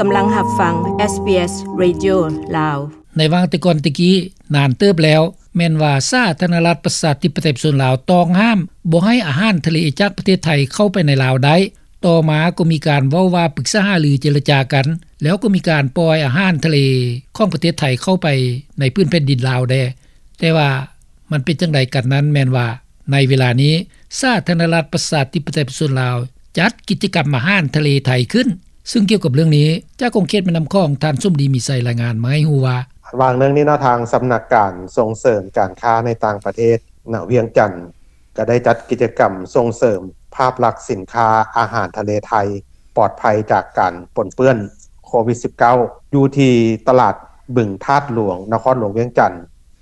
ກຳລັງຮັບຟັງ ເອສບີເອສ ເຣດິໂອ ລາວ. ໃນຫວ່າງແຕ່ກ່ອນແຕ່ກີ້ ນານເຕີບແລ້ວ ແມ່ນວ່າສາທາລະນະລັດ ປະຊາທິປະໄຕ ປະຊາຊົນລາວ ຕ້ອງຫ້າມບໍ່ໃຫ້ອາຫານທະເລຈາກປະເທດໄທເຂົ້າໄປໃນລາວໄດ້. ຕໍ່ມາກໍມີການເວົ້າວ່າປຶກສາຫາລືເຈລະຈາກັນ ແລ້ວກໍມີການປ່ອຍອາຫານທະເລຂອງປະເທດໄທເຂົ້າໄປໃນພື້ນແຜ່ນດິນລາວແດ່. ແຕ່ວ່າມັນເປັນຈັ່ງໃດກັນນັ້ນ ແມ່ນວ່າໃນເວລານີ້ ສາທາລະນະລັດ ປະຊາທິປະໄຕ ປະຊາຊົນລາວ ຈັດກິດຈະກຳອາຫານທະເລໄທຂຶ້ນ. ຊຶ່ງກ່ຽວກັບເລື່ອງນີ້ ຈາກຂົງເຂດແມ່ນ້ຳຂອງ ທ່ານສົມດີ ມີໄຊ ລາຍງານມາໃຫ້ຮູ້ວ່າ ຫວ່າງໜຶ່ງນີ້ເນາະ ທາງສຳນັກການສົ່ງເສີມການຄ້າໃນຕ່າງປະເທດ ນະ ວຽງຈັນ ກໍໄດ້ຈັດກິດຈະກຳສົ່ງເສີມພາບລັກສິນຄ້າອາຫານທະເລໄທ ປອດໄພຈາກການປົນເປື້ອນໂຄວິດສິບເກົ້າ ຢູ່ທີ່ຕະຫຼາດບຶງທາດຫຼວງ ນະຄອນຫຼວງວຽງຈັນ.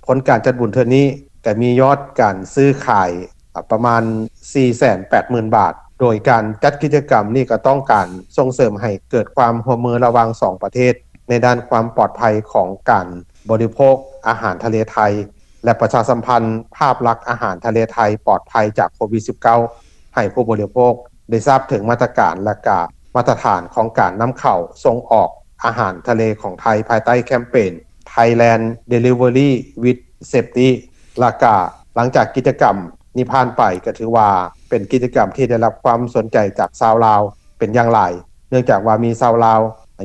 ຜົນການຈັດບຸນເທື່ອນີ້ກໍມີຍອດການຊື້ຂາຍ ອາ ປະມານສີ່ແສນແປດໝື່ນບາດ. ໂດຍການຈັດກິດຈະກຳນີ້ກໍຕ້ອງການສົ່ງເສີມໃຫ້ເກີດຄວາມຮ່ວມມືລະຫວ່າງສອງປະເທດ ໃນດ້ານຄວາມປອດໄພຂອງການບໍລິໂພກອາຫານທະເລໄທ ແລະ ປະຊາສຳພັນພາບລັກອາຫານທະເລໄທປອດໄພຈາກໂຄວິດສິບເກົ້າ ໃຫ້ຜູ້ບໍລິໂພກໄດ້ຊາບເຖິງມາດຕະການ ແລະ ກະມາດຕະຖານຂອງການນຳເຂົ້າສົ່ງອອກອາຫານທະເລຂອງໄທ ພາຍໃຕ້ແຄມເປນ Thailand Delivery with Safety. ແລະ ກະຫຼັງຈາກກິດຈະກຳນີ້ຜ່ານໄປ ກໍຖືວ່າເປັນກິດຈະກຳທີ່ໄດ້ຮັບຄວາມສົນໃຈຈາກຊາວລາວເປັນຢ່າງຫຼາຍ ເນື່ອງຈາກວ່າມີຊາວລາວ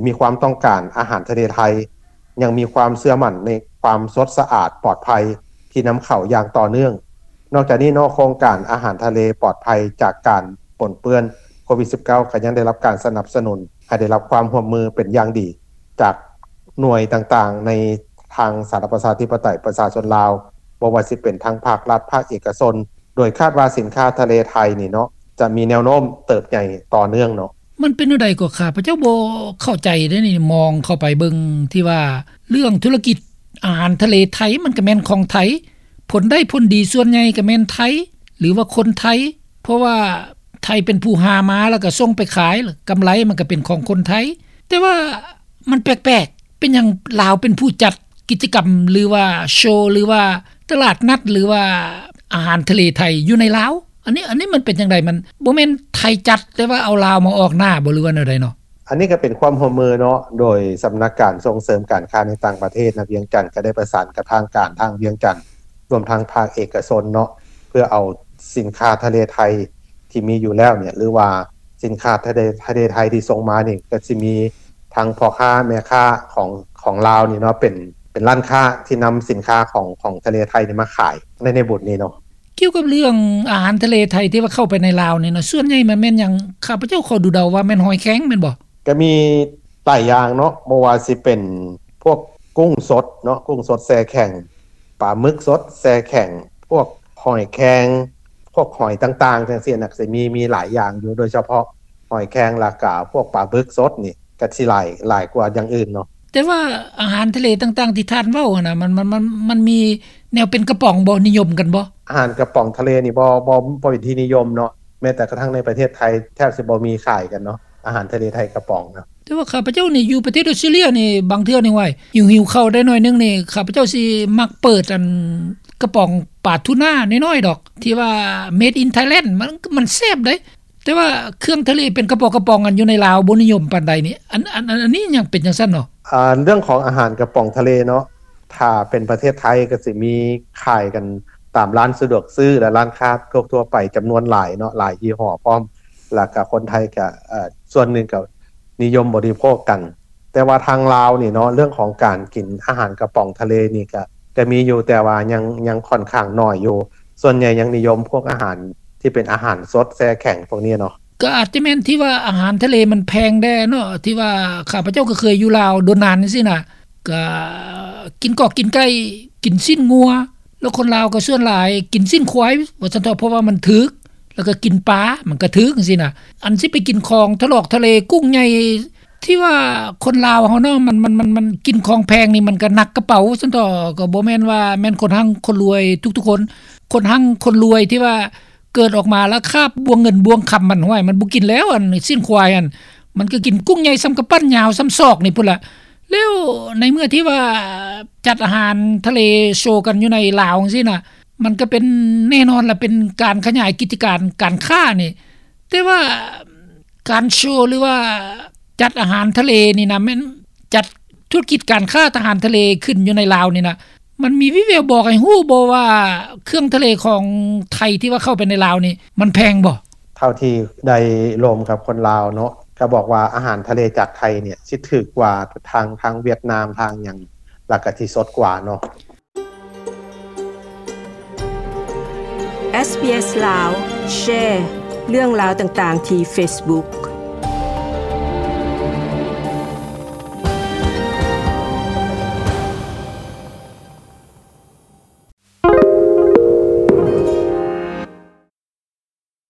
ມີຄວາມຕ້ອງການອາຫານທະເລໄທ ຍັງມີຄວາມເຊື່ອໝັ້ນໃນຄວາມສົດສະອາດປອດໄພທີ່ນຳເຂົ້າຢ່າງຕໍ່ເນື່ອງ. ນອກຈາກນີ້ເນາະ ໂຄງການອາຫານທະເລປອດໄພຈາກການປົນເປື້ອນໂຄວິດສິບເກົ້າ ກໍຍັງໄດ້ຮັບການສະໜັບສະໜູນໃຫ້ໄດ້ຮັບຄວາມຮ່ວມມືເປັນຢ່າງດີ ຈາກໜ່ວຍຕ່າງໆໃນທາງສາທາລະນະລັດ ປະຊາທິປະໄຕ ປະຊາຊົນລາວ ບໍ່ວ່າຊິເປັນທາງພາກລັດ ພາກເອກະຊົນ ໂດຍຄາດວ່າສິນຄ້າທະເລໄທນີ້ເນາະ ຈະມີແນວໂນ້ມເຕີບໃຫຍ່ຕໍ່ເນື່ອງເນາະ. ມັນເປັນແນວໃດກໍ ຂ້າພະເຈົ້າບໍ່ເຂົ້າໃຈເດ້ນີ້ ມອງເຂົ້າໄປເບິ່ງທີ່ວ່າເລື່ອງທຸລະກິດອາຫານທະເລໄທ ມັນກໍແມ່ນຂອງໄທ ຜົນໄດ້ຜົນດີສ່ວນໃຫຍ່ກໍແມ່ນໄທ ຫຼືວ່າຄົນໄທ ເພາະວ່າໄທເປັນຜູ້ຫາມາ ແລ້ວກໍສົ່ງໄປຂາຍ ກຳໄລມັນກໍເປັນຂອງຄົນໄທ. ແຕ່ວ່າມັນແປກໆ ເປັນຫຍັງລາວເປັນຜູ້ຈັດກິດຈະກຳ ຫຼືວ່າໂຊ ຫຼືວ່າຕະຫຼາດນັດ ຫຼືວ່າອາຫານທະເລໄທຢູ່ໃນລາວ? ອັນນີ້ ອັນນີ້ມັນເປັນຈັ່ງໃດ? ມັນບໍ່ແມ່ນໄທຈັດ ແຕ່ວ່າເອົາລາວມາອອກໜ້າບໍ່ ຫຼືວ່າແນວໃດເນາະ? ອັນນີ້ກໍເປັນຄວາມຮ່ວມມືເນາະ ໂດຍສຳນັກການສົ່ງເສີມການຄ້າໃນຕ່າງປະເທດນະວຽງຈັນ ກໍໄດ້ປະສານກັບທາງການທາງວຽງຈັນ ລວມທັງພາກເອກະຊົນເນາະ ເພື່ອເອົາສິນຄ້າທະເລໄທທີ່ມີຢູ່ແລ້ວເນຍ ຫຼືວ່າສິນຄ້າທະເລ ທະເລໄທທີ່ສົ່ງມານີ້ ກໍຊິມີທັງພໍ່ຄ້າແມ່ຄ້າຂອງ ຂອງລາວນີ້ເນາະ ເປັນ ເປັນຮ້ານຄ້າທີ່ນຳສິນຄ້າຂອງ ຂອງທະເລໄທນີ້ມາຂາຍໃນ ໃນບຸນນີ້ເນາະ. ກ່ຽວກັບເລື່ອງອາຫານທະເລໄທທີ່ວ່າເຂົ້າໄປໃນລາວນີ້ນະ ສ່ວນໃຫຍ່ມັນແມ່ນຫຍັງ? ຂ້າພະເຈົ້າຂໍເດົາໆວ່າແມ່ນຫອຍແຄງແມ່ນບໍ່? ກໍມີຫຼາຍຢ່າງເນາະ ບໍ່ວ່າຊິເປັນພວກກຸ້ງສົດເນາະ ກຸ້ງສົດແຊ່ແຂງ ປາໝຶກສົດແຊ່ແຂງ ພວກຫອຍແຄງ ພວກຫອຍຕ່າງໆ ຈັ່ງຊີ້ນະ ກໍຊິມີ ມີຫຼາຍຢ່າງຢູ່ ໂດຍສະເພາະຫອຍແຄງ ແລ້ວກະພວກປາໝຶກສົດນີ້ ກໍຊິຫຼາຍ ຫຼາຍກວ່າຢ່າງອື່ນເນາະ. ແຕ່ວ່າອາຫານທະເລຕ່າງໆທີ່ທ່ານເວົ້າຫັ້ນນະ ມັນ ມັນ ມັນ ມັນມີແນວເປັນກະປ໋ອງບໍ່? ນິຍົມກັນບໍ່? ອາຫານກະປ໋ອງທະເລນີ້ບໍ່ ບໍ່ ບໍ່ເປັນທີ່ນິຍົມເນາະ ແມ້ແຕ່ກະທັ່ງໃນປະເທດໄທແທບຊິບໍ່ມີຂາຍກັນເນາະ ອາຫານທະເລໄທກະປ໋ອງເນາະ. ແຕ່ວ່າຂ້າພະເຈົ້ານີ້ຢູ່ປະເທດອອສເຕຣເລຍນີ້ ບາງເທື່ອນີ້ ໂອ້ຍ ຫິວໆເຂົ້າໄດ້ໜ້ອຍໜຶ່ງນີ້ ຂ້າພະເຈົ້າຊິມັກເປີດອັນກະປ໋ອງປາທູນານ້ອຍໆດອກ ທີ່ວ່າ Made in Thailand ມັນ ມັນແຊບເດ້. ແຕ່ວ່າເຄື່ອງທະເລເປັນກະປ໋ອງກະປ໋ອງ ອັນຢູ່ໃນລາວບໍ່ນິຍົມປານໃດນີ້ ອັນ ອັນ ອັນ ອັນນີ້ຍັງເປັນຈັ່ງຊັ້ນເນາະ? ອາ ເລື່ອງຂອງອາຫານກະປ໋ອງທະເລເນາະ ຖ້າເປັນປະເທດໄທກໍຊິມີຂາຍກັນຕາມຮ້ານສະດວກຊື້ ແລະ ຮ້ານຄ້າທົ່ວໆໄປຈຳນວນຫຼາຍເນາະ ຫຼາຍຍີ່ຫໍ້ພ້ອມ ແລ້ວກະຄົນໄທກະ ເອີ ສ່ວນໜຶ່ງກະນິຍົມບໍລິໂພກກັນ. ແຕ່ວ່າທາງລາວນີ້ເນາະ ເລື່ອງຂອງການກິນອາຫານກະປ໋ອງທະເລນີ້ກະ ກະມີຢູ່ ແຕ່ວ່າຍັງ ຍັງຂ້ອນຂ້າງໜ້ອຍຢູ່ ສ່ວນໃຫຍ່ຍັງນິຍົມພວກອາຫານທີ່ເປັນອາຫານສົດແຊ່ແຂງພວກນີ້ເນາະ. ກໍອາດຈະແມ່ນທີ່ວ່າອາຫານທະເລມັນແພງແດ່ເນາະ ທີ່ວ່າຂ້າພະເຈົ້າກໍເຄີຍຢູ່ລາວດົນນານຈັ່ງຊີ້ນະ ກໍກິນກອກກິນໄກ່ ກິນຊີ້ນງົວ ແລ້ວຄົນລາວກໍສ່ວນຫຼາຍກິນຊີ້ນຄວາຍວ່າຊັ້ນເຖາະ ເພາະວ່າມັນຖືກ ແລ້ວກໍກິນປາມັນກໍຖືກຈັ່ງຊີ້ນະ. ອັນຊິໄປກິນຂອງທະຫຼອກທະເລ ກຸ້ງໃຫຍ່ ທີ່ວ່າຄົນລາວເຮົາເນາະ ມັນ ມັນ ມັນ ມັນກິນຂອງແພງນີ້ ມັນກໍໜັກກະເປົາຊັ້ນເຖາະ ກໍບໍ່ແມ່ນວ່າແມ່ນຄົນຮັ່ງຄົນລວຍທຸກໆຄົນ. ຄົນຮັ່ງຄົນລວຍທີ່ວ່າເກີດອອກມາແລ້ວຄາບບ່ວງເງິນບ່ວງຄຳມັນ ຫ້ວຍ ມັນບໍ່ກິນແລ້ວ ອັນຊີ້ນຄວາຍຫັ້ນ ມັນກໍກິນກຸ້ງໃຫຍ່ສ່ຳກຳປັ້ນ ຍາວສ່ຳສອກນີ້ພຸ້ນລະ. ແລ້ວໃນເມື່ອທີ່ວ່າຈັດອາຫານທະເລໂຊກັນຢູ່ໃນລາວຈັ່ງຊີ້ນະ ມັນກໍເປັນແນ່ນອນລະ ເປັນການຂະຫຍາຍກິດຈະການການຄ້ານີ້ ແຕ່ວ່າການໂຊ ຫຼືວ່າ ຈັດອາຫານທະເລນີ້ນະ ແມ່ນຈັດທຸລະກິດການຄ້າອາຫານທະເລຂຶ້ນຢູ່ໃນລາວນີ້ນະ ມັນມີວິແວວບອກໃຫ້ຮູ້ບໍ່ວ່າ ເຄື່ອງທະເລຂອງໄທທີ່ວ່າເຂົ້າໄປໃນລາວນີ້ ມັນແພງບໍ່? ເທົ່າທີ່ໄດ້ລົມກັບຄົນລາວເນາະ ກໍບອກວ່າອາຫານທະເລຈາກໄທນີ້ ຊິຖືກກວ່າທາງ ທາງຫວຽດນາມ ທາງຫຍັງ ແລ້ວກໍຊິສົດກວ່າເນາະ. ເອສບີເອສ ລາວ ແຊເລື່ອງລາວຕ່າງໆທີ່ເຟສບຸກ